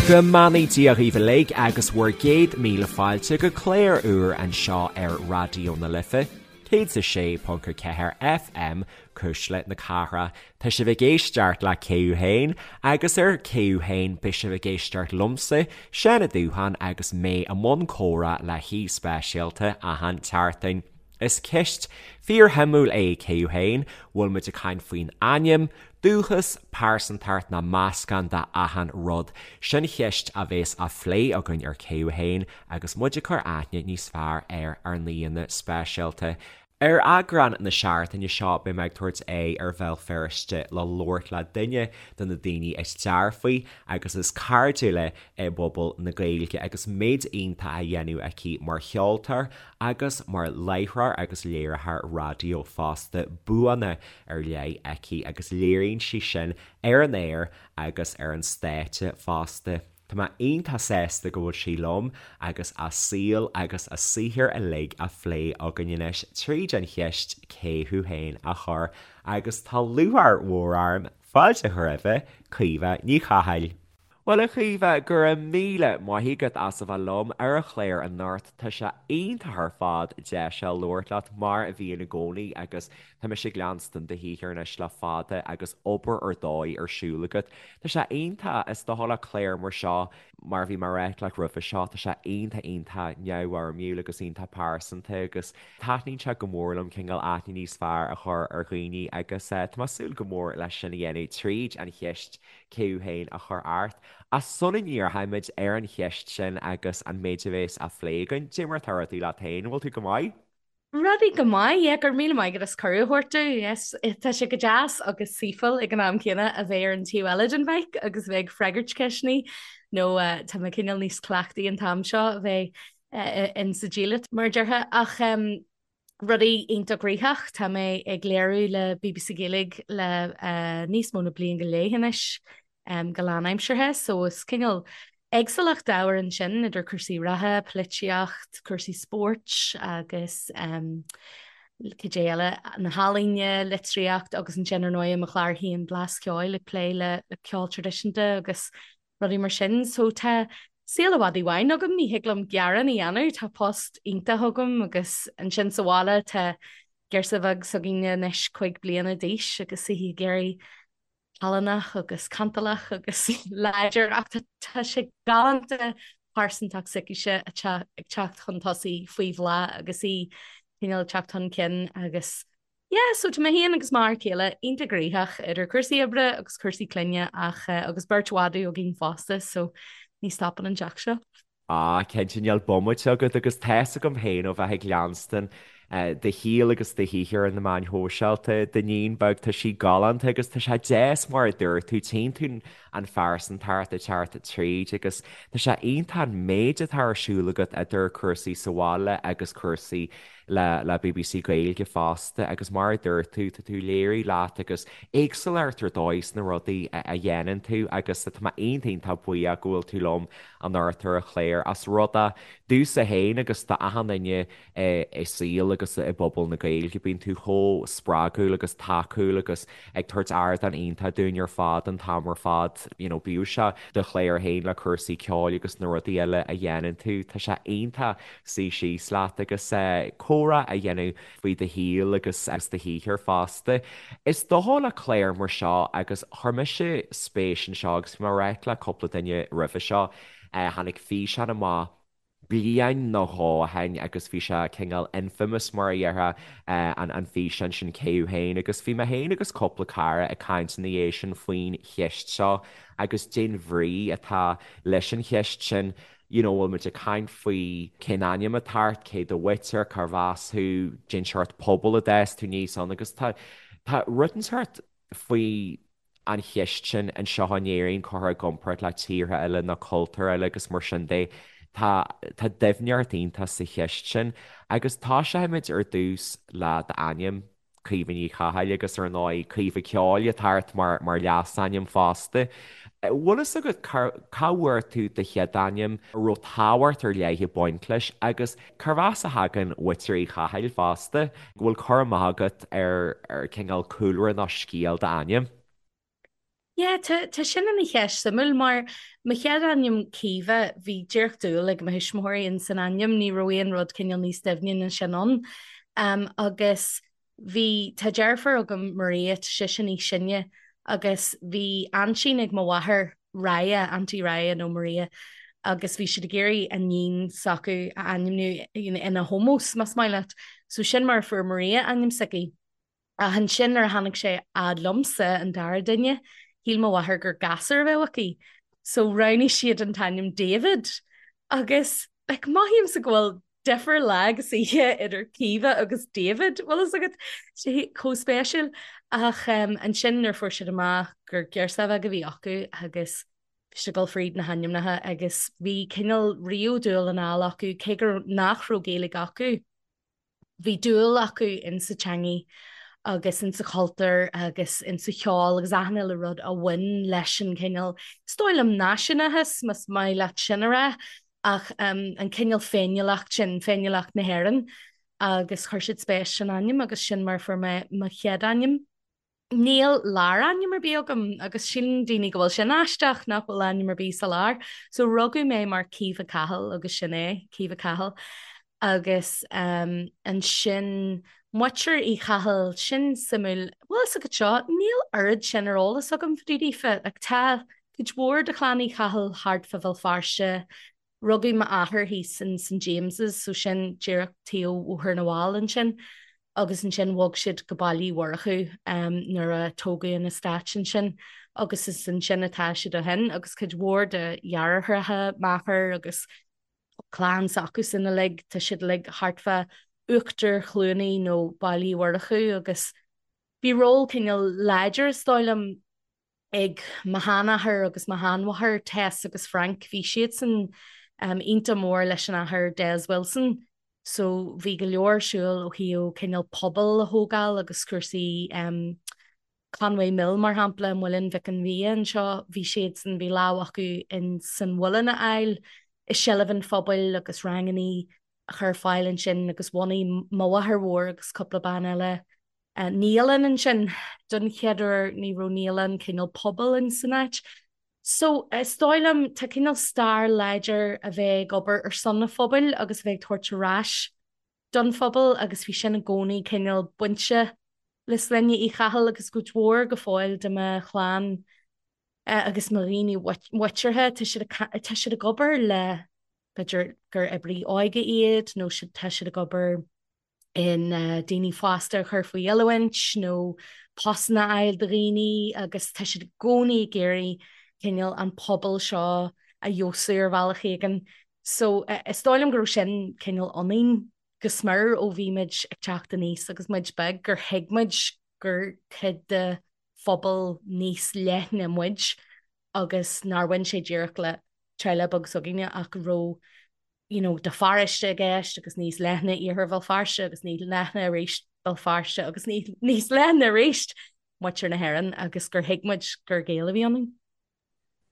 Go mbeannaí Dia dhaoibh uilig agus bhur gcéad míle fáilte go clár úr anseo ar Raidió na Life, 106.4 FM, Cuisle na Cathrach. Tá sibh ag éisteacht le Cé Thú Féin agus ar Cé Thú Féin beidh sibh ag éisteacht liomsa, Seán Ó Dúcháin agus mé i mbun comhrá le haoi speisialta achan tseachtain. Is ceist fíorshuimiúil é Cé Thú Féin, bhfuil muid ag caint faoin ainm, dúchas, pearsantacht nó meascán de achan rud? Sin cheist a bhéas á phlé againn ar Cé Thú Féin agus muid ag cur aithne níos fearr ar ár n-aíonna speisialta. Ar eagrán na seachtaine seo beidh mé ag tabhairt aghaidh ar Bhéal Feirste le labhairt le duine de na daoine is dearfaí agus is cairdiúla i bpobal na Gaeilge agus méid iontach á dhéanamh aici mar cheoltóir agus mar láithreoir agus léiritheoir raidió fosta, buanna ar leith aici agus léiríonn sí sin ar an aer agus ar an stáitse fosta. Tá mé iontach sásta go bhfuil sí liom agus a saol agus a saothar uilig á phlé againn anois tríd an cheist 'Cé thú féin? a chur agus tá lúcháir mhór orm fáilte a chur roimhe, Caoimhe Ní Chathail. Bhuel, a Chaoimhe, go raibh míle maith agat as a bheith liom ar an chlár anocht. Tá sé iontach ar fad deis a labhairt leat, mar a bhíonn i gcónaí, agus tá mise ag leanstan do shaothar anois le fada agus obair ar dóigh ar siúl agat. Tá sé iontach, is dócha le clár mar seo, mar a bhí mé ag ráit leat roimhe seo, tá sé iontach iontach neamhfhoirmiúil agus iontach pearsanta agus taitníonn sé go mór liom cineál aithne níos fearr a chur ar dhaoine agus tá mé ag súil go mór leis sin a dhéanamh tríd an cheist Cé thú féin a chur ort. Ach sula ndíreoimid ar an cheist sin agus an méid a bhéas á phlé againn, cad é mar atá rudaí leat féin, an bhfuil tú go maith? Rudaí go maith, yeah, go raibh míle maith agat as cuireadh a thabhairt domh, yes. Tá sé go deas agus saoithiúil ag an am céanna a bheith ar an taobh eile den mhic agus a bheith ag freagairt ceisteanna nó tá mé cineál níos cleachtaí an t-am seo a bheith in sa diallait mar a déarfá ach rudaí iontach gnoitheach. Tá mé ag léiriú le bbc Gaeilge le níos mó na bliain go leith anois go lánaimseartha, so is cineál éagsúlacht ábhair ansin idir cúrsaí reatha, polaitíocht, cúrsaí spóirt agus cad é eile, na healaíona, litríocht agus ansin ar ndóigh mo chlár féin Blas Ceoil ag plé le ceol traidisiúnta agus rudaí mar sin. So tá saol i bhfad i bhfeidhm agam, ní thig liom gearán a dhéanamh, tá post iontach agam agus ansin sa bhaile tá girseach bheag s'againne anois 5 bliana d'aois agus í ag éirí callánach agus cantalach agus láidir ach tá sé galánta pearsantacht s'aicise ag teacht chun tosaigh faoi bhláth agus í cineál ag teacht chun cinn agus Yeah, so tá mé féin agus m'fhear céile iontach gnoitheach idir cúrsaí oibre agus cúrsaí clainne ach agus beirt mhadadh againn fosta so ní stopann an teach seo. Ah, cinnte níl bomaite agat agus tá's agam féin ó bheith ag leanstan do shaol agus do shaothar ar na meáin shóisialta, d'iníon beag, tá sí galánta agus tá sé deas mar a dúirt tú, tchíonn tú an phearsantacht ag teacht tríd agus tá sé iontach an méid atá ar siúl agat idir cúrsaí sa bhaile agus cúrsaí le le bbc Gaeilge fosta agus mar a dúirt tú, tá tú ag léiriú leat agus éagsúlacht ar dóigh sna rudaí a dhéanann tú agus tá mé iontach iontach buíoch go bhfuil tú liom anocht ar an chlár as rud é domhsa féin agus d'achan duine i saol agus i bpobal na Gaeilge. Bíonn tú chomh spreagúil agus tacúil agus ag tabhairt ardán iontach dúinn ar fad an t-am ar fad, you know, bíodh sé do chlár féin le cúrsaí ceoil agus na rudaí eile a dhéanann tú, tá sé iontach suí síos leat agus comhrá a dhéanamh faoi do shaol agus do shaothar fosta. Is dócha le clár mar seo agus chuir mise spéis anseo agus bhí mé ag ráit le cúpla duine roimhe seo, tháinig físeán amach bliain nó dhó ó shin agus bhí sé cineál infamous mar a déarfá an físeán sin Cé Thú Féin agus bhí mé féin agus cúpla cara ag caint ina dhiaidh sin faoin cheist seo agus cén bhrí atá leis an cheist sin. You know, bhfuil muid ag caint faoi cén ainm atá ort, cé do mhuintir, cárbh as thú, cén seort pobal a d'fhás tú aníos ann agus tá, tá rud inteacht faoi an cheist sin anseo in Éirinn curtha i gcomparáid le tíortha eile nó cultúir eile agus mar sin de. Tá, tá doimhneacht iontach sa cheist sin agus tosóimid ar dtús le d'ainm. Caoimhe Ní Chathail agus ar ndóigh Caoimhe Ceoil atá ort mar mar leasainm fosta. Bhfuil fhios agat cá cá bhfuair tú do chéad ainm, an raibh tábhacht ar leith ag baint leis agus cárbh as a thagann muintir Uí Chathail fosta? Bhfuil cur amach agat ar ar cineál cúlra nó scéal d'ainm? Yeah, tá, tá sin ina cheist suimiúil mar mo chéad ainm Caoimhe, bhí díreach dúil ag mo thuismitheoirí in san ainm, ní raibh aon rud cineál níos doimhne ná sin ann. Um, agus bhí, tá deirfiúr agam Maria, tá sise níos sine, agus bhí aintín ag mo mháthair, Raya, Auntie Raya nó Maria, agus bhí siad ag iarraidh an iníon s'acu a ainmniú ina hómós, más maith leat. So sin mar a fuair Maria ainm s'aici. Ach ansin nuair a tháinig sé fhad liomsa, an dara duine, shíl mo mháthair gur gasúr a bheadh aici. So roghnaigh siad an t-ainm David. Agus, like, mothaímse go bhfuil difear lá agus oíche idir Caoimhe agus David, bhfuil fhios agat, sé chomh spéisiúil. Ach um, ansin nuair fuair siad amach gur girseach bheag a bhí acu agus bhí siad ag dul fríd na hainmneacha agus bhí cineál riamh dúil anall acu cé gur nach raibh Gaeilge acu. Bhí dúil acu insa teangaidh agus insa chultúr agus insa cheol agus achan uile rud a bhain leis an cineál, is dóigh liom náisiúnachas, más maith leat sin a rá, ach an cineál féiniúlacht sin, féiniúlacht na hÉireann agus chuir siad spéis san ainm agus sin mar a fuair mé mo chéad ainm. Níl lárainm ar bith agam agus síleann daoine go bhfuil sin aisteach nach bhfuil ainm ar bith sa lár. So rugadh mé mar Caoimhe Cahill agus sin é, Caoimhe Cahill. Agus um, ansin muintir Uí Chathail, sin suimiúil, bhfuil fhios agat seo, níl oiread sin ar eolas agam fá dtaobh daofa. Like, tá cuid mhór de chlann Uí Chathail thart fá Bhéal Feirste, Rugadh m'athair thíos in St James's, so sin díreach taobh Bhóthar na bhFál ansin, agus ansin bhog siad go Baile Uí Mhurchú nuair a tógadh an eastát ansin agus is ansin atá siad ó shin agus cuid mhór de dheartháireacha m'athar agus clann s'acusan uilig, tá siad uilig thart fá Uachtar Chluanaí nó Baile Uí Mhurchú agus bhí ról cineál láidir is dóigh liom ag mo sheanathair agus mo sheanmháthair, Tess agus Frank, bhí siadsan iontach mór leis an Athair Des Wilson so bhí go leor ar siúl ó thaobh cineál pobal a thógáil agus cúrsaí Conway Mill mar shampla, Muileann Mhic an Bhia anseo, bhí siadsan, bhí lámh acu in san mhuileann a fháil i seilbh an phobail agus rangannaí a chur ar fáil ansin agus bhunaigh mo mháthair mhór agus cúpla bean eile naíolann ansin don chéad uair, ní raibh naíolann cineál pobail in san áit. So, is dóigh liom, tá cineál stair láidir a bheith ag obair ar son an phobail agus a bheith ag tabhairt ar ais don phobal agus bhí sin i gcónaí cineál bainte le sloinne Uí Chathail agus cuid mhór go fóill de mo chlann agus mo dhaoine muinteartha, tá siad tá siad ag obair le b'fhéidir gur oibrí óige iad nó tá siad ag obair in daoine fásta a chur faoi oiliúint nó postanna a fháil do dhaoine agus tá siad i gcónaí ag iarraidh cineál an pobal seo a fheabhsú ar bhealach éigin. So is dóigh liom go raibh sin cineál ionainn go smior ó bhí muid ag teacht aníos agus muid beag gur thuig muid gur cuid de phobal níos leithne muid agus nár bhain sé díreach le teaghlach beag s'againne ach go raibh you know, do pharóiste i gceist agus níos leithne Iarthar Bhéal Feirste agus níos leithne arís Béal Feirste agus níos leithne arís muintir na hÉireann agus gur thuig muid gur Gaeil a bhí ionainn.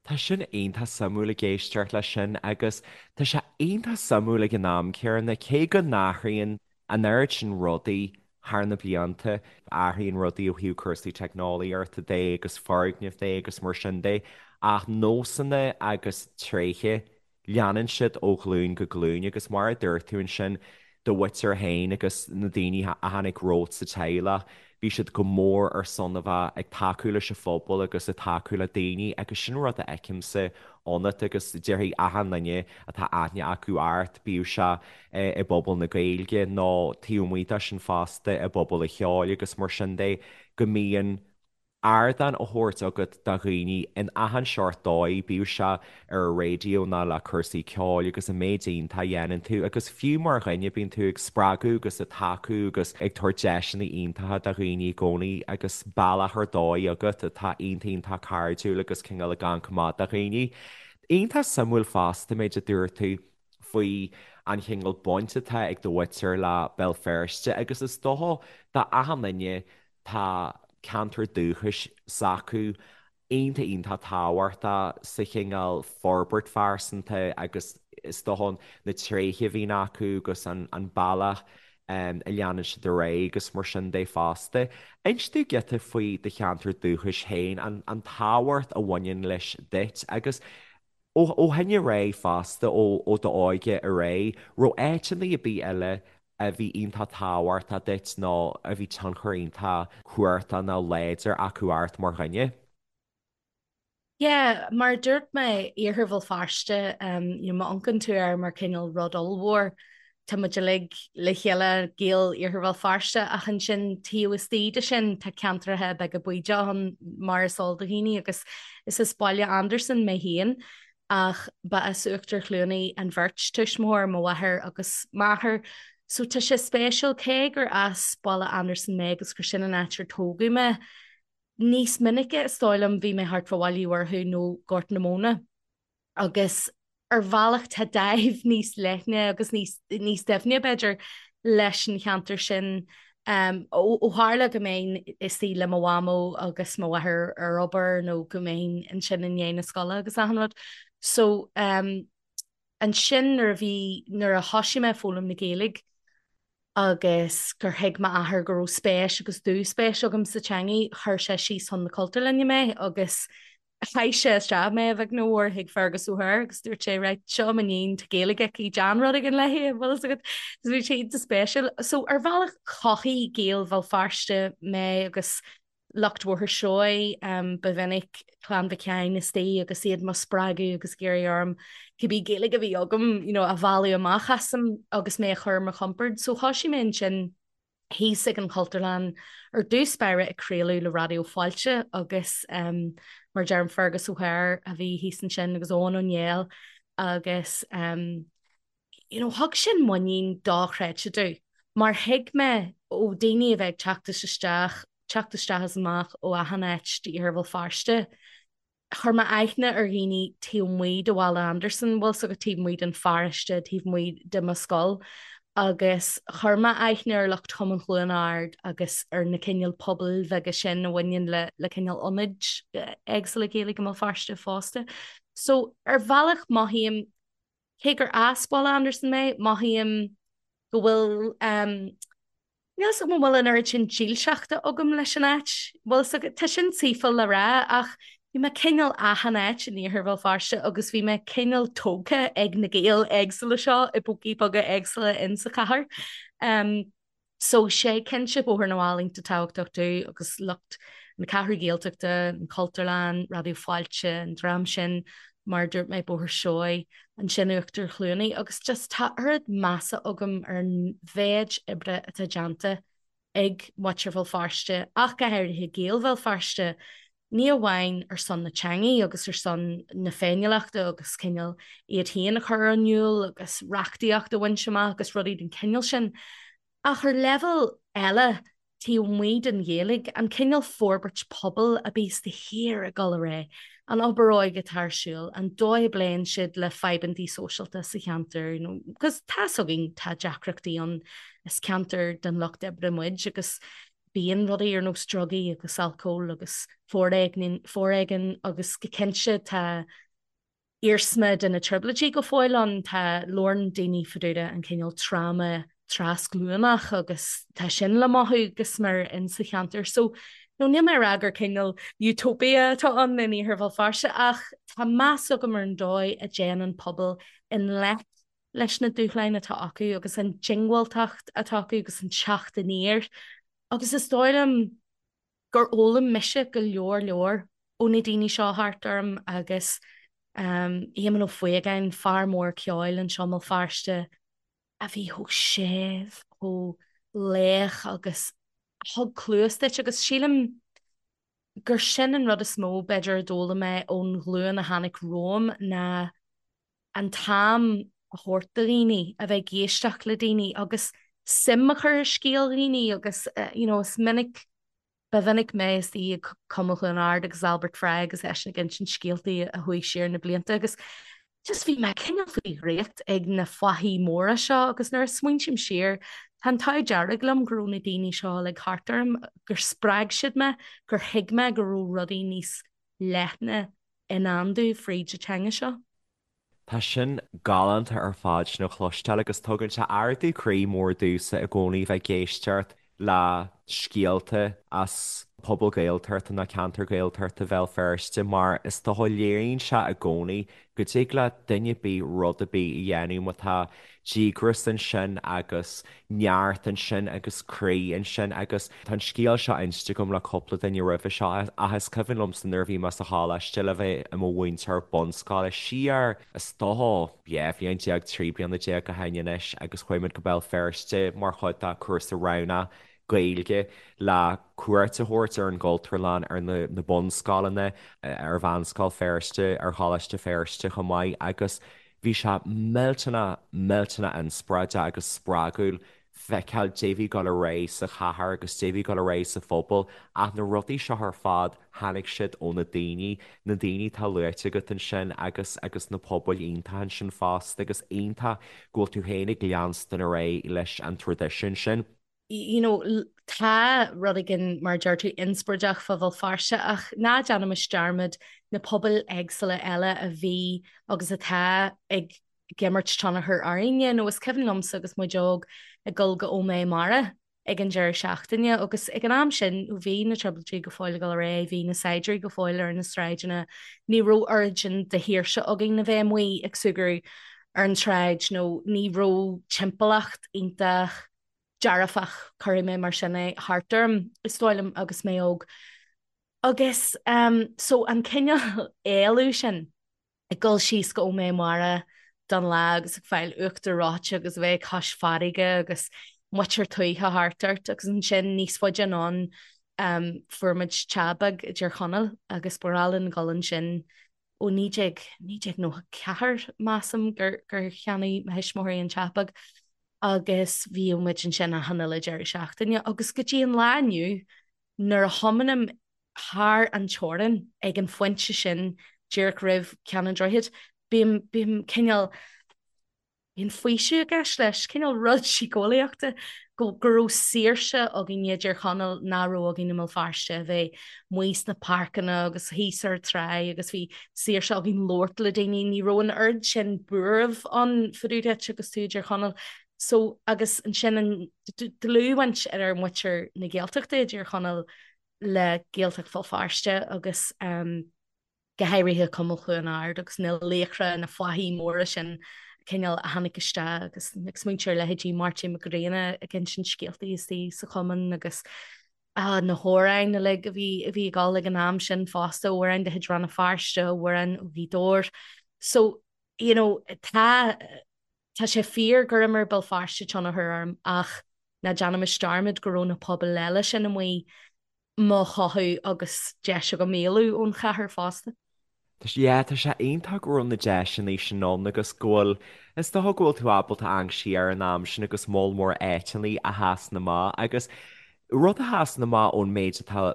Tá sin iontach suimiúil ag éisteacht leis sin agus tá sé iontach suimiúil ag an am céanna cé go n-athraíonn an oiread sin rudaí thar na blianta, athraíonn rudaí ó thaobh cúrsaí teicneolaíochta de agus foirgnimh de agus mar sin de ach nósanna agus tréithe Leanann siad ó ghlúin go glúin agus mar a dúirt tú ansin, do mhuintir féin agus na daoine a tháinig romhat sa teaghlach, bhí siad go mór ar son a bheith ag tacú leis an phobal agus ag tacú le daoine agus sin rud a fheicimse ionat agus déarfaidh achan duine atá aithne acu ort, bíodh sé i bpobal na Gaeilge nó taobh amuigh de sin fosta i bpobal an cheoil agus mar sin de, go mbíonn ardán á thabhairt agat do dhaoine in achan seort dóigh, bíodh sé ar an raidió nó le cúrsaí ceoil agus an méid iontach a dhéanann tú agus fiú mar dhuine bíonn tú ag spreagadh agus ag tacú agus ag tabhairt deiseanna iontacha do dhaoine i gcónaí agus bealach ar dóigh agat atá iontach iontach cairdiúil agus cineál ag amharc amach do dhaoine. Iontach suimiúil fosta an méid a dúirt tú faoi an chineál baint atá ag do mhuintir le Béal Feirste agus is dócha do achan duine Tá ceantar dúchais s'acu iontach iontach tábhachtach sa chineál forbairt phearsanta agus is dócha na tréithe a bhíonn acu agus an bealach. a leanann siad ar aghaidh agus mar sin de fosta. Inis dúinn giota faoi do cheantar dúchais féin, an tábhacht a bhaineann leis duit agus ó shin ar aghaidh fosta, ó d'óige ar aghaidh, raibh áiteanna ar bith eile a bhí iontach tábhachtach duit nó a bhí tionchar iontach cumhachtach nó láidir acu ort mar dhuine? Yeah, mar a dúirt mé, Iarthar Bhéal Feirste, you know, má amharcann tú air mar cineál rud ollmhór, tá muid uilig le chéile, Gaeil Iarthar Bhéal Feirste, ach ansin taobh istigh de sin tá ceantracha beaga bídeacha ann mar is eol do dhaoine agus is as Baile Andarsan mé féin ach ba as Uachtar Chluanaí an bheirt tuismitheoir, mo mháthair agus m'athair. So tá sé spéisiúil, cé gur as Baile Andarsan mé agus gur sin an áit ar tógadh mé, Níos minice, is dóigh liom, bhí mé thart fá Bhaile Uí Mhurchú nó Gort na Móna agus ar bhealach tá dáimh níos leithne agus níos, níos doimhne, b'fhéidir, leis an cheantar sin. Ó tharla go mbeinn istigh le mo mhamó agus mo mháthair ar obair nó go mbeinn ansin i ndiaidh na scoile agus achan rud. So, ansin nuair a bhí, nuair a thoisigh mé ag foghlaim na Gaeilge, agus gur thuig m'athair go raibh spéis agus dúspéis agam sa teangaidh, chuir sé síos chun na Cultúrlainne mé agus chaith sé isteach mé, a bheag nó a mhór, chuig Fergus O'Hare agus dúirt sé, right, seo m'iníon, tá Gaeilge aici, déan rud éigin léi, an bhfuil fhios agat? So bhí sé iontach spéisiúil. So ar bhealach chothaigh Gaeil Bhéal Feirste mé agus lucht Bhóthar Seoighe, ba mhinic Clann Mhic Sheáin istigh agus iad mo spreagadh agus ag iarraidh orm cibé Gaeilge a bhí agam you know, a mhealladh amach asam agus mé a chur ar mo chompord. So thoisigh mé ansin thíos ag an Chultúrlann ar dtús báire ag craoladh le Raidió Fáilte agus um, mar deirim Fergus O'Hare a bhí thíos ansin agus Eoin Ó Néill agus um, you know, thug sin muinín dochreidte domh, mar thuig mé ó daoine a bheith ag teacht is isteach, teacht isteach is amach ó achan áit d'iarthar Bhéal Feirste, chuir mé aithne ar dhaoine taobh amuigh de Bhaile Andarsan, bhfuil 's agat taobh amuigh den pharóiste, taobh amuigh de mo scoil, agus chuir mé aithne ar lucht Chumann Chluain Ard agus ar na cineál pobail bheaga sin a bhaineann le le cineál ionaid éagsúla Gaeilge i mBéal Feirste fosta. So, ar bhealach mothaím Cé gur as Baile Andarsan mé, mothaím go bhfuil, níl 'fhios agam an bhfuil an oiread sin dílseachta agam leis an áit. Bhfuil 'fhios agat, tá sin saoithiúil le rá ach bhí mé cineál achan áit in iarthar Bhéal Feirste agus bhí mé cineál tógtha ag na Gaeil éagsúla seo i bpócaí beaga éagsúla in sa chathair. So sé cinnte Bóthar na bhFál iontach tábhachtach domh agus lucht na Ceathrú Gaeltachta, an Chultúrlann, Raidió Fáilte, an dream sin, mar a dúirt mé, Bóthar Seoighe, ansin Uachtar Chluanaí agus just tá oiread measa agam ar an mhéid oibre atá déanta ag muintir Bhéal Feirste ach go háirithe Gaeil Bhéal Feirste, ní amháin ar son na teangaí agus ar son na féiniúlachta agus cineál iad féin a chur in iúl agus reachtaíocht a bhaint amach agus rudaí den chineál sin, ach ar leibhéal eile taobh amuigh den Ghaeilge, an cineál forbairt pobail a bíos de shíor ag dul ar aghaidh, an obair óige atá ar siúl, an dóigh a bpléann siad le fadhbantaí sóisialta sa cheantar, you know, because tá's againn tá deacrachtaí ann, is ceantar den lucht oibre muid agus Bíonn rudaí ar nós drugaí agus alcól agus foréigean agus go cinnte tá iarsma de na trioblóidí go fóill ann. Tá, labhrann daoine fá dtaobh de an cineál tráma trasghlúnach agus tá sin le mothú go smior insa cheantar. So, no, níl mé ag rá gur cineál utopia atá ann in Iarthar Bhéal Feirste ach tá meas agam ar an dóigh a dtéann an pobal i ngleic leis na dúshláin atá acu agus an diongbháilteacht atá acu agus an teacht aniar agus is dóigh liom gur fhoghlaim mise go leor leor ó na daoine seo thart orm agus Éamonn Ó Faogáin, fear mór ceoil anseo i mBéal Feirste a bhí chomh séimh, chomh lách agus a thug cluas duit agus sílim gur sin an rud is mó b'fhéidir a d'fhoghlaim mé ón ghlúin a tháinig romham ná an t-am a thabhairt do dhaoine, a bheith ag éisteacht le daoine agus suim a chur i scéal dhaoine agus you know is minic, ba mhinic mé istigh ag Cumann Chluain Ard agus Albert Fry agus eisean ag insint scéaltaí a chuaigh siar na blianta agus just bhí mé cineál faoi dhraíocht ag na fathaigh mhóra seo agus nuair a smaointím siar tá an t-ádh dearg liom go raibh na daoine seo uilig thart orm, gur spreag siad mé, gur thuig mé go raibh rudaí níos leithne i ndán domh fríd an teanga seo. Tá sin galánta ar fad sin a chloisteáil agus tugann sé ardú croí mór domhsa i gcónaí bheith ag éisteacht le scéalta as pobal Gaeltachta nó ceantar Gaeltachta Bhéal Feirste mar is dócha léiríonn sé i gcónaí go dtig le duine ar bith rud ar bith a dhéanamh má tá díograis ansin agus neart ansin agus croí ansin agus tá an scéal seo inste agam le cúpla duine roimhe seo ach is cuimhin liomsa nuair a bhí mé sa choláiste le bheith i mo mhúinteoir bunscoile siar is dócha 12 bhliain, 13 bliana ó shin anois agus chuaigh muid go Béal Feirste mar chuid de chúrsa roghnach Gaeilge le cuairt a thabhairt ar an gCultúrlann, ar na bunscoileanna, ar Mheánscoil Feirste, ar Choláiste Feirste chomh maith agus bhí sé millteanach, millteanach inspioráideach agus spreagúil feiceáil dé bhí ag dul ar aghaidh sa chathair agus dé bhí ag dul ar aghaidh sa phobal ach na rudaí seo ar fad tháinig siad ó na daoine, na daoine atá luaite agat ansin agus agus na pobail iontacha ansin fosta agus iontach go bhfuil tú féin ag leanstan ar aghaidh leis an traidisiún sin. You know, tá rud éigin, mar a deir tú, inspioráideach fá Bhéal Feirste ach ná déanaimis dearmad na pobail éagsúla eile a bhí agus atá ag imirt tionchar orainne. Nó is cuimhin liomsa agus muid óg ag dul go Ó Méith Mara ag an deireadh seachtaine agus ag an am sin bhí na trioblóidí go fóill ag dul ar aghaidh, bhí na saighdiúirí go fóill ar na sráideanna, ní raibh oiread sin de shaoirse againn a bheith amuigh ag súgradh ar an tsráid nó ní raibh timpeallacht iontach dearfach, cuirfidh mé mar sin é, thart orm, is dóigh liom, agus mé óg. Agus so an cineál éalú sin, ag dul síos go Ó Méith Mara don lá agus ag fáil uachtar reoite agus a bheith cois farraige agus muintir tuaithe thart ort agus ansin níos faide anonn fuair muid teach beag i dTír Chonaill agus ba ghnách linn dul ansin ó 19, 1994 measaim gur gur cheannaigh mo thuismitheoirí an teach beag agus bhíodh muid ansin achan uile deireadh seachtaine agus go dtí an lá inniu nuair a thiomáinim thar an teorainn ag an phointe sin díreach roimh Ceann an Droichid, bím, bím cineál, bíonn faoiseamh i gceist leis, cineál rud síceolaíochta go, go raibh saoirse againn i dTír Chonaill nach raibh againn i mBéal Feirste, a bheith amuigh sna páirceanna agus thíos ar an tráigh agus bhí saoirse againn labhairt le daoine, ní raibh an oiread sin buairimh ann fá dtaobh duit agus tú i dTír Chonaill. So, agus ansin an dlúthbhaint idir muintir na Gaeltachta i dTír Chonaill le Gaeltacht Bhéal Feirste agus go háirithe Cumann Chluain Ard agus na laochra, na fathaigh mhóra sin cineál a tháinig isteach agus ag smaointiú ar leithéidí Máirtín Mac Grianna ag insint scéaltaí istigh sa chumann agus na hamhráin uilig a bhí a bhí ag dul ag an am sin fosta, amhráin de chuid Rann na Feirste, amhráin ó Ghaoth Dobhair. So, you know, tá tá sé fíor gur imir Béal Feirste tionchar orm ach ná déanaimis dearmad go raibh na pobail eile sin amuigh mo chothú agus deis agam éalú ón chathair fosta. Yeah, tá sé iontach go raibh na deiseanna sin ann agus go bhfuil, is dócha go bhfuil tú ábalta amharc siar ar an am sin agus moll mór áiteanna a sheasann amach agus rud a sheasann amach ón méid atá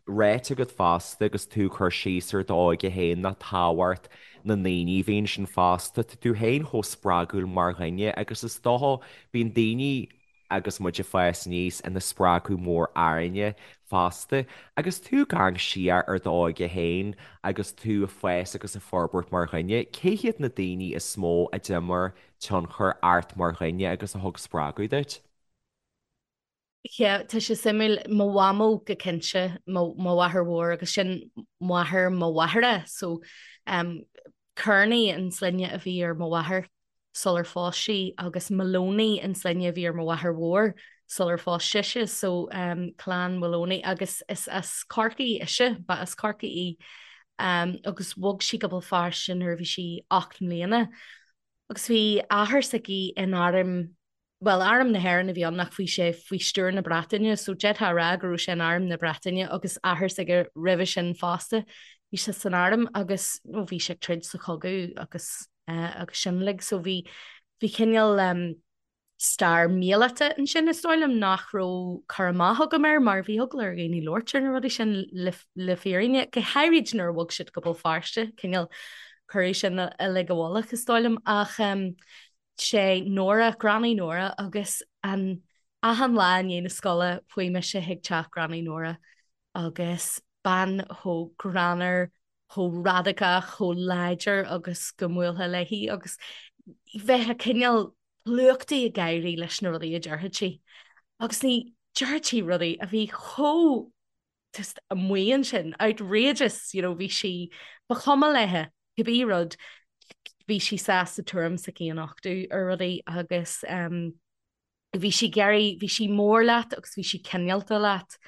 ráite agat fosta agus tú ag cur síos ar d'óige féin ná tábhacht na ndaoine a bhí ansin fosta. Tá tú féin chomh spreagúil mar dhuine agus is dócha bíonn daoine agus muid ag fás aníos ina spreagadh mór orainne fosta. Agus tú ag amharc siar ar d'óige féin agus tú ag fás agus ag forbairt mar dhuine, cé hiad na daoine is mó a d'imir tionchar ort mar dhuine agus a thug spreagadh duit? Yeah, tá sé suimiúil, mo mhamó go cinnte, mo mháthair mhór agus sin máthair mo mháthara, so um, Kearney an sloinne a bhí ar mo mháthair sular phós sí agus Maloney an sloinne a bhí ar mo mháthair mhór sular phós sise, so um, clann Maloney agus is as Corcaigh ise, ba as Corcaigh í um, agus bhog sí go Béal Feirste nuair a bhí sí 8 mbliana agus bhí athair s'aici in arm bhuel, Arm na hÉireann a bhí ann ach bhí sé faoi stiúir na Breataine, so d'fhéadfá a rá go raibh sé in Arm na Breataine agus athair s'aige roimhe sin fosta. Bhí sé san arm agus nó bhí sé ag troid sa chogadh agus eh, agus sin uilig, so bhí bhí cineál um, stair míleata ansin is dóigh liom nach raibh cur amach agam air mar bhí eagla ar dhaoine labhairt ar na rudaí sin le, le fírinne, go háirid nuair a bhog siad go Béal Feirste, cineál cuireadh sin uilig i bhfolach is dóigh liom ach um, sé Nóra, Granny Nóra agus an achan lá i ndiaidh na scoile chuaigh mise chuig teach Granny Nóra agus bean chomh greannmhar, chomh radacach, chomh láidir agus go mbuailfeá léi agus bheifeá cineál plúchtaí ag gáirí leis na rudaí a déarfadh sí. Agus ní déarfadh sí rudaí a bhí chomh just amuigh ansin, outrageous, you know, bhí sí, ba chuma léithe cibé rud, bhí sí sásta tuairim s'aici a nochtadh ar rudaí agus um, bhí sí ag iarraidh, bhí sí mór leat agus bhí sí cineálta leat.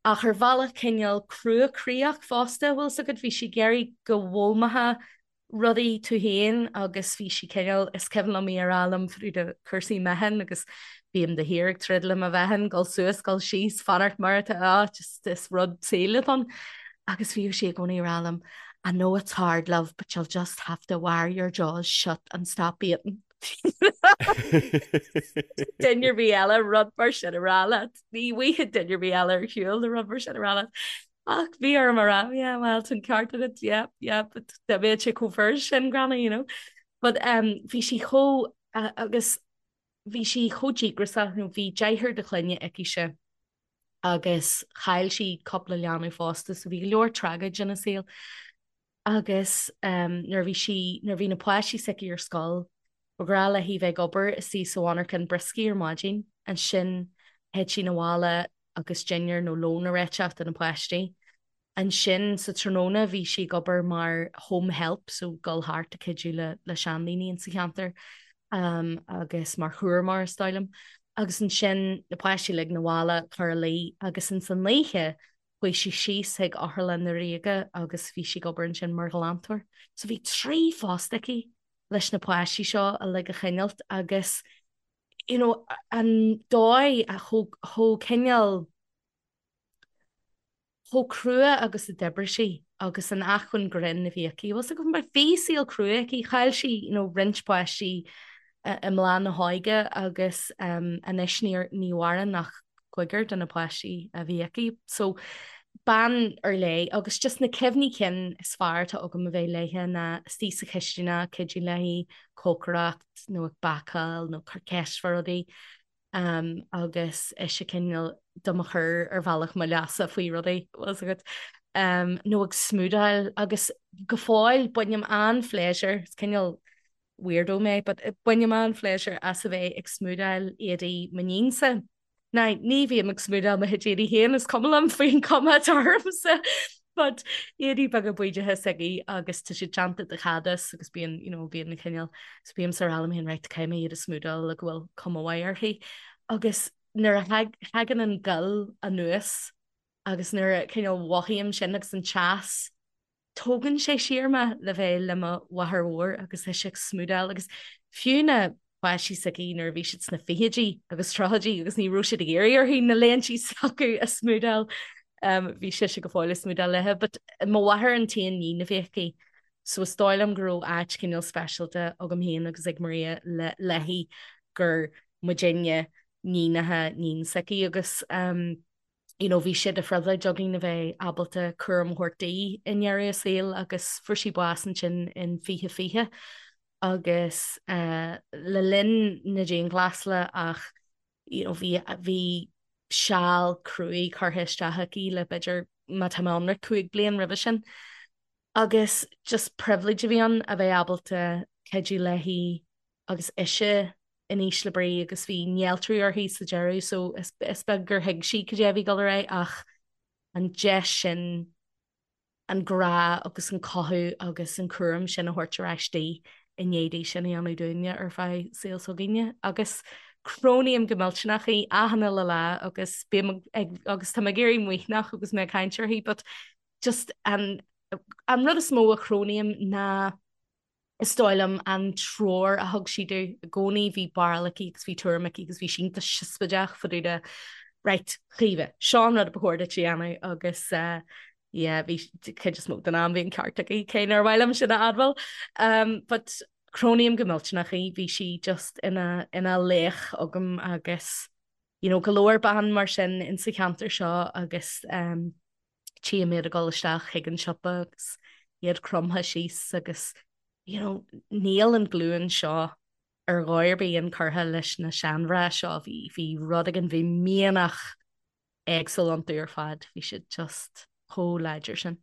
Ach ar bhealach cineál cruachroíoch fosta, bhfuil 's agat, bhí sí ag iarraidh go bhfoghlaimeofá rudaí tú féin agus bhí sí cineál, is cuimhin liom í a rá liom fá dtaobh de cúrsaí meáchain agus bím de shíor ag troid le mo mheáchan, dul suas, dul síos, fanacht mar atá, ah, just is rud saoil atá ann. Agus bhíodh sí i gcónaí ag rá liom, I know it's hard, love, but you'll just have to wear your jaws shut and stop eating. Duine ar bith eile rud mar sin a rá leat. Ní bhfaighidh duine ar bith eile ar shiúl le rud mar sin a rá leat. Ach bhí orm a rá, yeah, well, tá an ceart agat, yeah, yeah, but dá mbeadh sé chomh furast sin, Gráinne, you know. But um, bhí sí chomh, uh, agus bhí sí chomh díograiseach, nó bhí deartháir de chlainne aicise agus chaill sí cúpla leanbh fosta, so bhí go leor tragóid ina saol. Agus um, nuair a bhí sí, nuair a bhí na páistí s'aici ar scoil, ba ghnách léi bheith ag obair istigh sa mhonarchan brioscaí ar maidin, ansin théadh sí 'na bhaile agus dinnéar nó lón a réiteach do na páistí. Ansin sa tráthnóna bhí sí ag obair mar home help, so dul thart ag cuidiú le le seandaoine insa cheantar um, agus mar chúramóir is dóigh liom. Agus ansin na páistí uilig 'na bhaile cur a luí agus ins an oíche chuaigh sí síos chuig Otharlann na Ríoga agus bhí sí ag obair ansin mar ghlantóir. So bhí 3 phost aici leis na páistí seo uilig a choinneáilt agus you know, an dóigh a chomh chomh cineál chomh crua agus a d'oibrigh sí agus an acmhainn grinn a bhí aici. Bhfuil 's agat mar bhí saol crua aici, chaill sí you know, roinnt páistí i mbláth na hóige agus um, anois ní, ní mhaireann ach cúigear de na páistí a bhí aici. So bean ar leith agus just na cuimhní cinn is fearr atá agam a bheith léithe ná istigh sa chistineach, cuidiú léi, cócaireacht nó ag bácáil nó cur ceist fá rudaí um, agus ise cineál do mo chur ar bhealach mo leasa faoi rudaí bhfuil 's agat um, nó ag smúdáil agus go fóill bainim an-phléisiúr, is cineál weirdo mé, but bainim an-phléisiúr as a bheith ag smúdáil éadaí m'iníonsa. Now, ní bhím ag smúdáil mo chuid éadaí féin, is cuma liom faoin chuma atá ormsa, but éadaí beaga bídeacha s'aici agus tá siad déanta de chadás agus bíonn, you know, bíonn cineál, so bímse ag rá liom féin, right, caithfidh mé iad a smúdáil le go bhfuil cuma mhaith uirthi. Agus nuair a thagann an gal anuas agus nuair a cineál mhothaím sin agus an teas, Tógann sé siar mé le bheith le mo mháthair mhór agus ise ag smúdáil agus fiú na páistí s'aici nuair a bhí siad sna fichidí agus tríochaidí agus ní raibh siad ag iarraidh uirthi na léintí s'acu a smúdáil um, bhí sise go fóill ag smúdáil léithe. But mo mháthair an t-aon níon a bhí aici so is dóigh liom go raibh áit cineál speisialta agam féin agus ag Maria le léi gur muidinne níonacha níon s'aici agus um, you know, bhí sé de phribhléid againn a bheith ábalta cúram a thabhairt di i ndeireadh a saoil agus fuair sí bás ansin in 2020 agus uh, le linn na dianghlasála ach you know, bhí, bhí seal cruaidh curtha isteach aici le b'fhéidir má tá mé ionraic 5 bliain roimhe sin. Agus just pribhléid a bhí ann a bheith ábalta cuidiú léi agus ise in ísle brí agus bhí néaltrú uirthi sa deireadh so is beag gur thuig sí cad é a bhí ag dul ar aghaidh ach an deis sin an grá agus an cothú agus an cúram sin a thabhairt ar ais di i ndiaidh di sin a dhéanamh dúinne ar feadh saol s'againne agus cronaím go millteanach í achan uile lá agus bím ag agus tá mé ag éirí maoithneach agus mé ag caint uirthi but just an an rud is mó a chronaím ná Is dóigh liom an treoir a thug sí domh i gcónaí, bhí barúil aici agus bhí tuairim aici agus bhí sí iontach siosmaideach fá dtaobh de right, Chaoimhe, seo an rud ba chóir duit a dhéanamh agus eh, yeah, bhí cuid is mó den am bhí an ceart aici, cé nár mhaith liom sin a admháil. Um, but cronaím go millteanach í, bhí sí just ina, ina laoch agam agus you know, go leor ban mar sin insa cheantar seo agus um, tchím iad ag dul isteach chuig an siopa agus iad cromtha síos agus you know, níl an glúin seo ar dhóigh ar bith inchurtha leis na seanmhná seo. Bhí, bhí rud éigin, bhí mianach éagsúil iontu ar fad. Bhí siad just chomh láidir sin.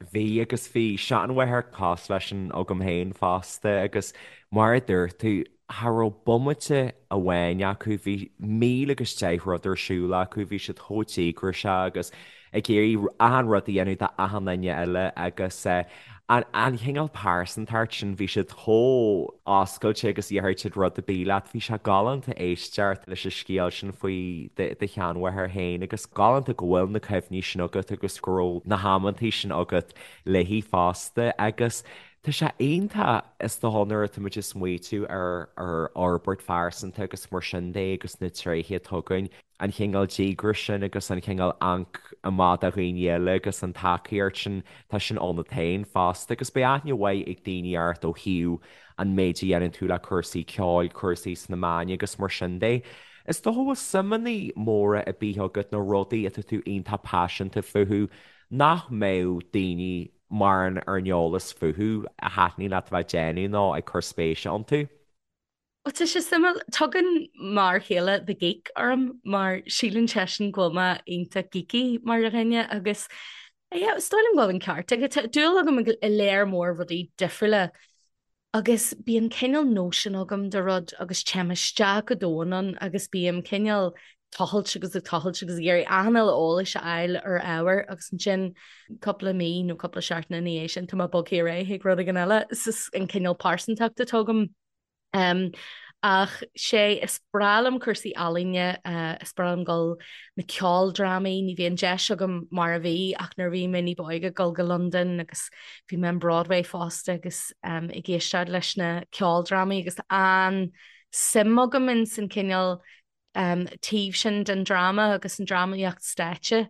Bhí agus bhí seanmháthair cosúil leis sin agam féin fosta agus mar a dúirt tú, cha raibh bomaite amháin acu, bhí 1010 rud ar siúl acu, bhí siad chomh díograiseach agus ag iarraidh achan rud a dhéanamh d'achan duine eile agus an chineál pearsantacht sin, bhí siad chomh oscailte agus dhéarfadh siad rud ar bith leat. Bhí sé galánta éisteacht leis an scéal sin faoi do sheanmháthair féin agus galánta go bhfuil na cuimhní sin agat agus go raibh na hamantaí sin agat léi fosta agus tá sé iontach is dócha nuair atá muid ag smaoitiú ar ar fhorbairt phearsanta agus mar sin de agus na tréithe atá againn an chineál díograis sin agus an chineál amharc amach do dhaoine eile agus an tacaíocht sin, tá sin ionat féin fosta agus beidh aithne mhaith ag daoine ort ó thaobh an méid a dhéanann tú le cúrsaí ceoil, cúrsaí sna meáin agus mar sin de. Is dócha go bhfuil suimeanna móra ar bith agat nó rudaí atá tú iontach paiseanta fúthu nach mbeadh daoine mórán ar an eolas fúthu a thaitníonn leat a bheith ag déanamh nó ag cur spéise iontu. Ó tá sé suimiúil, tugann m'fhear céile The Geek orm mar síleann seisean go bhfuil mé iontach geeky mar dhuine agus yeah, is dóigh liom go bhfuil an ceart aige. Tá dúil agam i léar mór rudaí difriúla agus bíonn cineál nóisean agam de rud agus téim isteach go domhain ann agus bím cineál tochailt agus ag tochailt agus ag iarraidh achan uile eolais a fháil ar ábhar agus ansin cúpla mí nó cúpla seachtain ina dhiaidh sin tá mé bogtha ar aghaidh chuig rud éigin eile. Is an cineál pearsantacht atá agam. Ach sé, is breá liom cúrsaí ealaíne, is breá liom dul na ceoldrámaí, ní bhíonn deis agam mar a bhí ach nuair a bhí mé ní ba óige dul go Londain agus bhí mé in Broadway fosta agus ag éisteacht leis na ceoldrámaí agus an-suim agam ins an cineál taobh sin den dráma agus an drámaíocht stáitse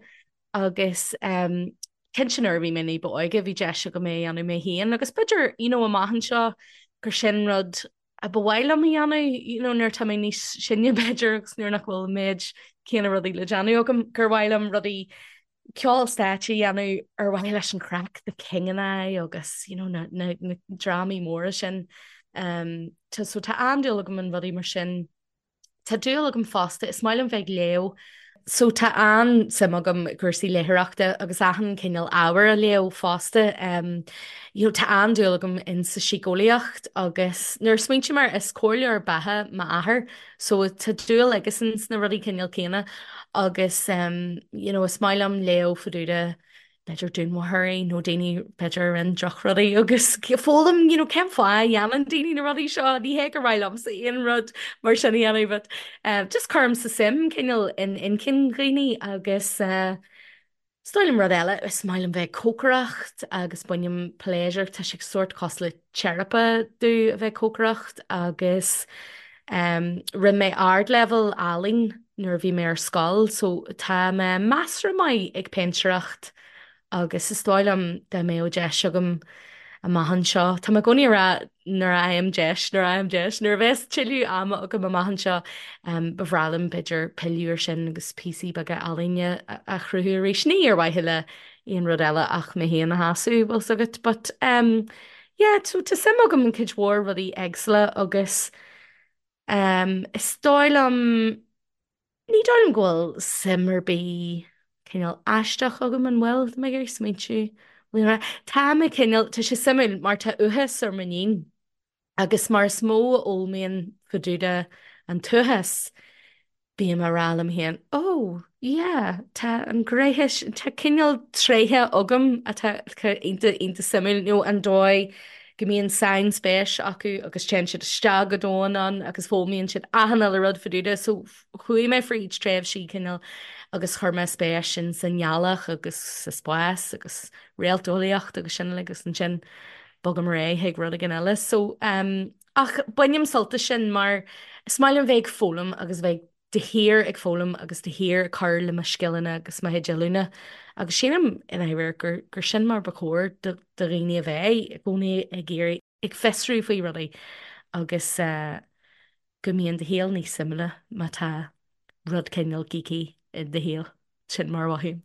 agus cinnte nuair a bhí mé ní ba óige bhí deis agam é a dhéanamh mé féin agus b'fhéidir you know amach anseo gur sin rud a ba mhaith liom a dhéanamh you know nuair atá mé níos sine b'fhéidir agus nuair nach bhfuil an méid céanna rudaí le déanamh agam gur mhaith liom rudaí ceol stáitse a dhéanamh ar mhaithe leis an chraic, The King and I agus you know na, na, na drámaí móra sin. Um, tá, so tá an-dúil agam in rudaí mar sin. Tá dúil agam fosta, is maith liom bheith ag léamh. So tá an-suim agam i gcúrsaí léitheoireachta agus achan cineál ábhair a léamh fosta. You know, tá an-dúil agam in sa síceolaíocht agus nuair a smaointím air, is comhairleoir beatha m'athair, so tá dúil aigesan sna rudaí cineál céanna agus you know, is maith liom léamh fá dtaobh de b'fhéidir dúnmharfóirí nó daoine b'fhéidir a rinne drochrudaí agus foghlaim you know, cén fáth a dhéanann daoine na rudaí seo, ní hé gur mhaith liomsa aon rud mar sin a dhéanamh but uh, just cuirimse suim cineál in inchinn dhaoine agus uh, is dóigh liom rud eile, is maith liom bheith ag cócaireacht agus bainim pléisiúr, tá sé sórt cosúil le teiripe domh a bheith ag cócaireacht agus um, rinne mé ardleibhéal ealaín nuair a bhí mé ar scoil so tá mé measartha maith ag péintéireacht agus is dóigh liom dá mbeadh deis agam amach anseo, tá mé i gcónaí ag rá nuair a fhaighim deis, nuair a fhaighim deis, nuair a bheas tuilleadh ama agam amach anseo ba bhreá liom b'fhéidir pilleadh ar sin agus píosaí beaga ealaíne a chruthú arís, ní ar mhaithe le aon rud eile ach mé féin a shásamh, bhfuil 's agat, but um, yeah, so tá suim agam in cuid mhór rudaí éagsúla agus um, is dóigh liom, ní dóigh liom go bhfuil suim ar bith cineál aisteach agam an bhfuil, tá mé ag iarraidh smaointiú, tá mé cineál, tá sé suimiúil mar tá uathachas ar m'iníon agus mar is mó a fhoghlaimím fá dtaobh de an t-uathachas, bím á rá liom féin, oh, yeah, tá an ghné, tá cineál tréithe agam atá iontach, iontach suimiúil, nó an dóigh go mbíonn sainspéis acu agus téann siad isteach go domhain ann agus foghlaimíonn siad achan uile rud fá dtaobh de. So chuaigh mé fríd tréimhsí cineál agus chuir mé spéis in sa ngealach agus sa spás agus réalteolaíocht agus sin uilig agus ansin bogaim ar aghaidh chuig rud éigin eile. So um, Ach bainim sult as sin mar is maith liom bheith ag foghlaim agus bheith de shíor ag foghlaim agus de shíor ag cur le mo scileanna agus mo chuid oiliúna agus sílim i ndáiríre gur gur sin mar ba chóir do do dhaoine a bheith, i gcónaí ag iarraidh, ag fiosrú faoi rudaí agus go mbíonn do shaol níos suimiúla má tá rud cineál geeky i do shaol. Sin mar a mhothaím.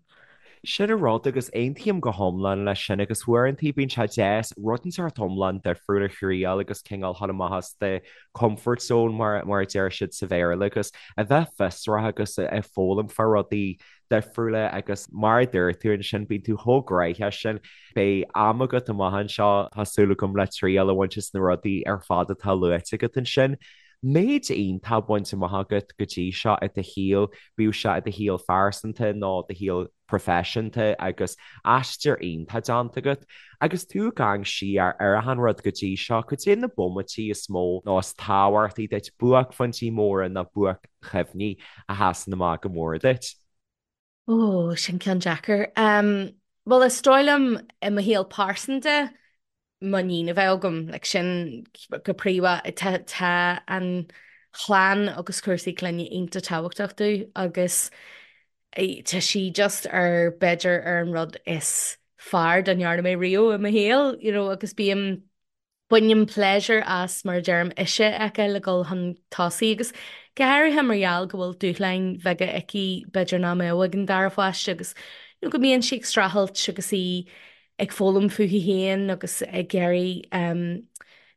Sin an rud agus aontaím go hiomlán leis sin agus uaireanta bíonn sé deas rud inteacht iomlán difriúil a thriail agus cineál dhul amach as do comfort zone mar a deir siad sa Bhéarla agus a bheith fiosrach agus ag foghlaim fá rudaí difriúla agus mar a dúirt tú ansin bíonn tú chomh gnóthach sin. Beidh am agat amach anseo tá súil agam le triail a bhaint as na rudaí ar fad atá luaite agat ansin. Méid iontach bainte amach agat go dtí seo i do shaol, bíodh sé i do shaol phearsanta nó do shaol proifisiúnta agus aistear iontach déanta agat. Agus tú ag amharc siar ar achan rud go dtí seo, cad é na bomaití is mó nó is tábhachtaí duit, buaicphointí móra nó buaic-chuimhní a sheasann amach go mór duit? Ó, sin ceann deacair. Bhuel, is dóigh liom i mo shaol pearsanta, m'iníon a bheith agam, like sin go príomha, tá tá an chlann agus cúrsaí clainne iontach tábhachtach domh agus tá sí just ar b'fhéidir ar an rud is fearr dá ndearna mé riamh i mo shaol, you know, agus bím Bainim pléisiúr as, mar a deirim, ise a fheiceáil ag dul chun tosaigh agus go háirithe mar gheall go bhfuil dúshláin bheaga aici b'fhéidir nach mbeadh ag an dara pháiste agus you know go mbíonn sí ag streachailt agus í ag foghlaim fúithi féin agus ag iarraidh um,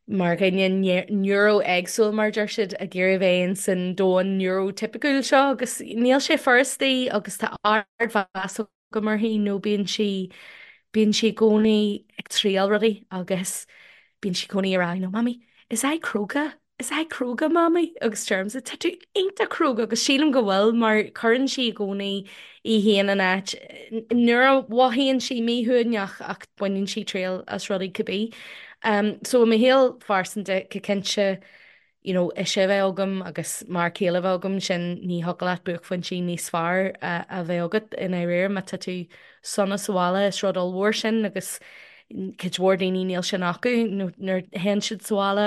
mar dhuine neuro-éagsúil mar a deir siad ag iarraidh bheith in san domhan neurotipiciúil seo agus níl sé furast di agus tá ardmheas agam uirthi nó bíonn sí, bíonn sí i gcónaí ag triail rudaí agus bíonn sí i gcónaí ag rá, you know, Mummy, is I cróga? Is I cróga, Mummy? Agus deirimse, tá tú iontach cróga agus sílim go bhfuil mar cuireann sí i gcónaí í féin in áit nuair a mhothaíonn sí míshuaimhneach ach baineann sí triail as rudaí cibé. Um, so i mo shaol phearsanta, go cinnte, you know, ise a bheith agam agus m'fhear céile a bheith agam, sin ní thiocfadh leat buaicphointí níos fearr a bheith agat i ndáiríre má tá tú sona sa bhaile, is rud ollmhór sin agus cuid mhór daoine níl sin acu nó nuair a théann siad sa bhaile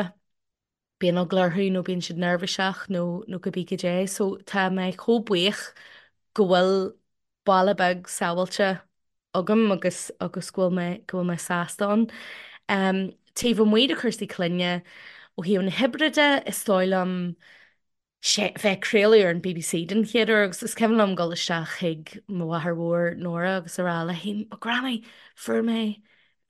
bíonn eagla orthu nó bíonn siad neirbhíseach nó nó cibé cad é. So tá mé chomh buíoch go bhfuil baile beag sábháilte agam agus agus go bhfuil mé go bhfuil mé sásta ann. Um, taobh amuigh de chúrsaí clainne, ó thaobh na hoibre de, is dóigh liom sé bheith ag craoladh ar an BBC den chéad uair agus is cuimhin liom dul isteach chuig mo mháthair mhór Nóra agus a rá léi, oh Granny, fuair mé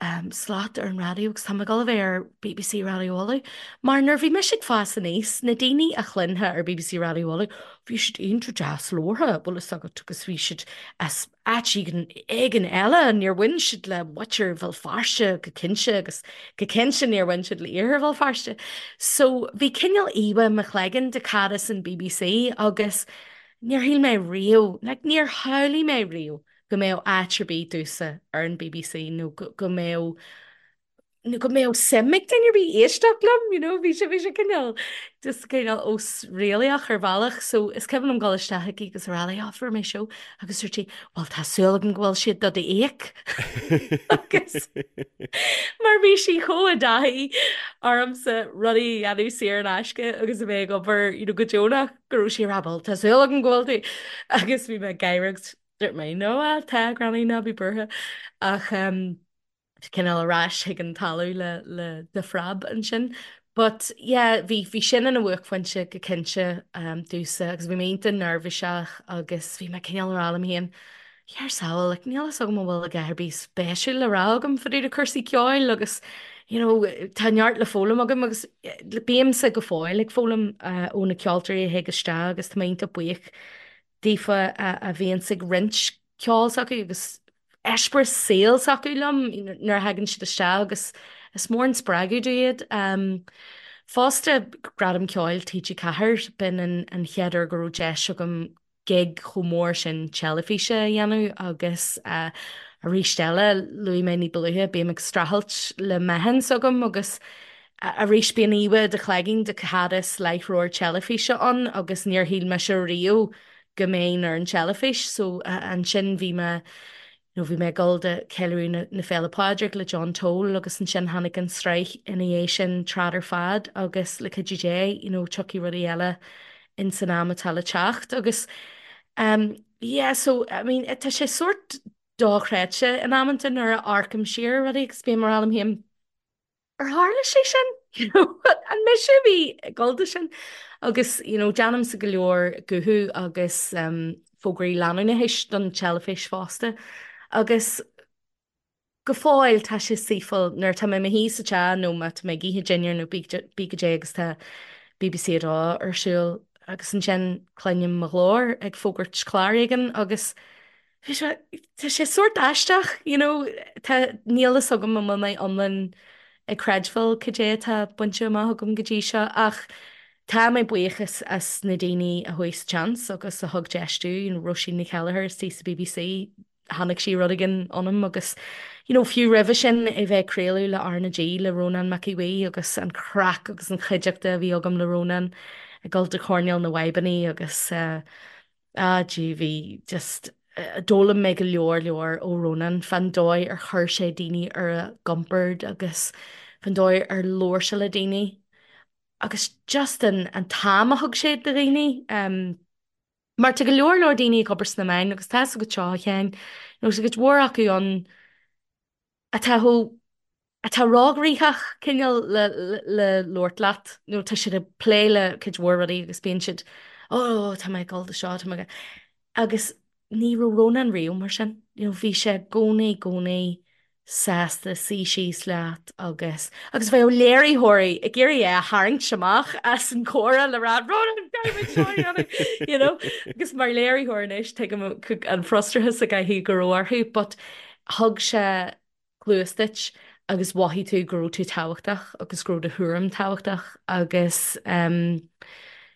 um, slot ar an raidió agus tá mé ag dul a bheith ar BBC Raidió Uladh. Mar nuair bhí mise ag fás aníos, na daoine a chluinfeá ar BBC Raidió Uladh, bhí siad iontach deas labhartha, bhfuil fhios agat, agus bhí siad as áit éigin, éigin eile, níor bhain siad le muintir Bhéal Feirste go cinnte agus go cinnte níor bhain siad le iarthar Bhéal Feirste. So bhí cineál íomhá i mo chloigeann de cad is an BBC agus níor shíl mé riamh, like níor shamhlaigh mé riamh go mbeadh áit ar bith domhsa ar an BBC nó go mbeadh nó go mbeadh suim ag duine ar bith éisteacht liom, you know, bhí sé bhí sé cineál just cineál osréalaíoch ar bhealach, so is cuimhin liom dul isteach chuici agus a rá léi, oh, fuair mé seó, agus dúirt sí, well tá súil agam go bhfuil siad do d'íoc agus mar bhí sí chomh i dtaithí ormsa rudaí a dhéanamh saor in aisce agus a bheith ag obair you know, go deonach go raibh sí ag rá, well tá súil agam go bhfuil tú agus bhí mé ag gáire agus Dúirt mé, no, ah, tá, Granny, ná bí buartha. Ach um, cineál ar ais chuig an talamh le, le de phreab ansin. But yeah, bhí, bhí sin ina bhuaicphointe go cinnte um, domhsa agus bhí mé iontach neirbhíseach agus bhí mé cineál ag rá liom féin, Ar sábháil, like, níl fhios agam an bhfuil a dhath ar bith spéisiúil le rá agam fá dtaobh de cúrsaí ceoil agus you know, tá neart le foghlaim agam agus eh, bímse go fóill ag foghlaim uh, ó na ceoltóirí a thig isteach agus tá mé iontach buíoch daofa a bhíonns ag roinnt ceol s'acu agus eispéireas saoil s'acu liom nuair a thagann siad isteach agus is mór an spreagadh domh iad. Fosta, Gradam Ceoil TG4, b'in an chéad uair go raibh deis agam gig chomh mór sin teilifíse a dhéanamh agus arís eile, luaigh mé ní ba luaithe, bím ag streachailt le meáchan s'agam agus Arís bíonn íomhá i do chloigeann de cad is láithreoir teilifíse ann agus níor shíl mise riamh go mbeinn ar an teilifís so ansin bhí mé you know bhí mé ag dul do Ceiliúradh na, na Féile Pádraig le John Toal agus ansin tháinig an tsraith ina dhiaidh sin Trad ar Fad agus le cuidiú Dé you know tiocfaidh rudaí eile in san am atá le teacht agus um, yeah so I mean tá sé sórt dochreidte in amanta nuair a amharcaim siar ar rudaí agus bím ag rá liom féin Ar tharla sé sin? You know, an mise a bhí ag dul do sin? Agus, you know, déanaimse go leor guthú agus um, fógraí leanúnachais don teilifís fosta. Agus go fóill tá sé saoithiúil nuair atá mé i mo shuí sa teach nó má tá mé ag ithe dinnéar nó pé goidé agus tá BBC 2 ar siúl agus ansin cluinim mo ghlór ag fógairt clár éigin agus bhí sé, tá sé sórt aisteach, you know, tá, níl fhios agam an bhfuil mé iomlán ag creidbheáil cad é atá bainte amach agam go dtí seo ach tá mé buíoch as na daoine a chuaigh sa tseans agus a thug deis domh, you know, Róisín Ní Cheilleachair istigh sa BBC, chonaic sí rud éigin ionam agus you know fiú roimhe sin a bheith ag craoladh le R na G le Rónán Mac Aodha Bhuí agus an chraic agus an chuideachta a bhí agam le Rónán ag dul do choirnéal na bhfadhbannaí agus eh ah gee bhí just eh, d'fhoghlaim mé go leor leor ó Rónán fán dóigh ar chuir sé daoine ar a gcompord agus fán dóigh ar labhair sé le daoine agus just an an t-am a thug sé do dhaoine um, Mar tá go leor leor daoine ag obair sna meáin agus tá fhios agat seo a Sheáin, nó tá cuid mhór acu ann atá chomh, atá róghnoitheach cineál le, le labhairt leat, nó tá siad ag plé le cuid mhór rudaí agus bíonn siad, oh tá mé ag dul do seo, tá mé ag. Agus ní raibh Rónán riamh mar sin, you know, bhí sé i gcónaí, i gcónaí sásta suí síos leat agus agus bheadh léiritheoirí ag iarraidh é a tharraingt amach as an chomhrá le rá Ronan caithfidh muid seo a dhéanamh you know agus mar léiritheoir anois tuigim an frustrachas a gcaithfidh go raibh orthu but thug sé cluas duit agus mhothaigh tú go raibh tú tábhachtach agus go raibh do thuairim tábhachtach agus um,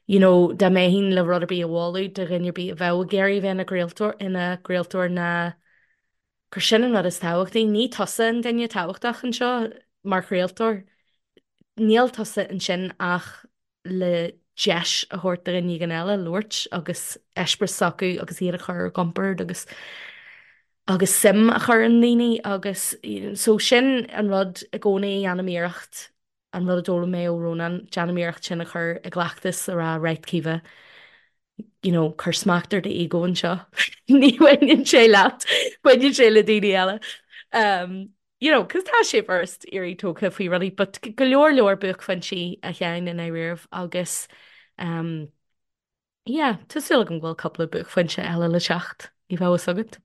you know dá mbeinn le rud ar bith a mholadh do dhuine ar bith a bheadh ag iarraidh bheith ina gcraoltóir ina gcraoltóir ná gur sin an rud is tábhachtaí. Ní tusa an duine tábhachtach anseo mar chraoltóir. Níl tusa ansin ach le deis a thabhairt do dhuine éigin eile labhairt agus eispéireas s'acu agus iad a chur ar a gcompord agus agus suim a chur i ndaoine agus so sin an rud i gcónaí a dhéanaim iarracht an rud a d'fhoghlaim mé ó Rónán, déanaim iarracht sin a chur i gcleachtas a rá right Caoimhe, you know, cuir smacht ar d'ego anseo. Ní bhaineann sé leat, baineann sé le daoine eile. Um, you know, cos tá sé furast éirí tógtha faoi rudaí, but go leor leor buaicphointí a Sheáin i ndáiríribh agus um, yeah, tá súil agam go bhfuil cúpla buaicphointe eile le teacht, ní bheadh fhios agat.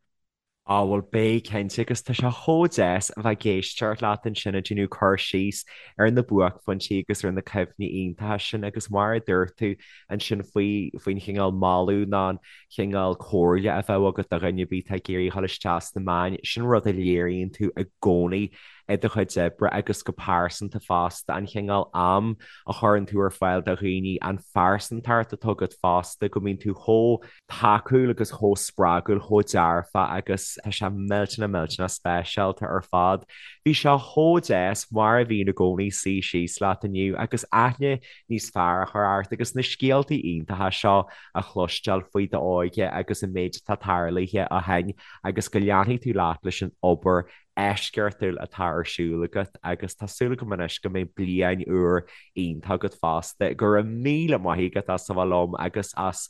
Á bhuel beidh cinnte agus tá sé chomh deas a bheith ag éisteacht leat ansin ag déanamh cur síos ar na buaicphointí agus ar na cuimhní iontacha sin agus mar a dúirt tú ansin faoi faoin chineál moladh nó an chineál comhairle a bheadh agat do dhuine ar bith atá ag iarraidh dhul isteach sna meáin, sin rud a léiríonn tú i gcónaí i do chuid oibre agus go pearsanta fosta, an chineál am a chuireann tú ar fáil do dhaoine, an phearsantacht atá agat fosta, go mbíonn tú chomh tacúil agus chomh spreagúil, chomh dearfach agus tá sé millteanach millteanach speisialta ar fad. Bhí sé chomh deas, mar a bhíonn i gcónaí, suí síos leat inniu agus aithne níos fearr a chur ort agus na scéaltaí iontacha seo a chloisteáil faoi d'óige agus an méid atá tarlaithe ó shin agus go leanfaidh tú leat leis an obair eisceachtúil atá ar siúl agat agus tá súil agam anois go mbeidh bliain úr iontach agat fosta. Go raibh míle maith agat as a bheith liom agus as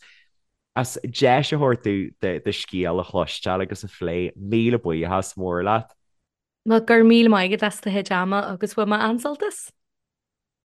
as deis a thabhairt domh do scéal a chloisteáil agus a phlé. Míle buíochas mór leat. Bhuel, go raibh míle maith agat as do chuid ama agus bhain mé an-sult as.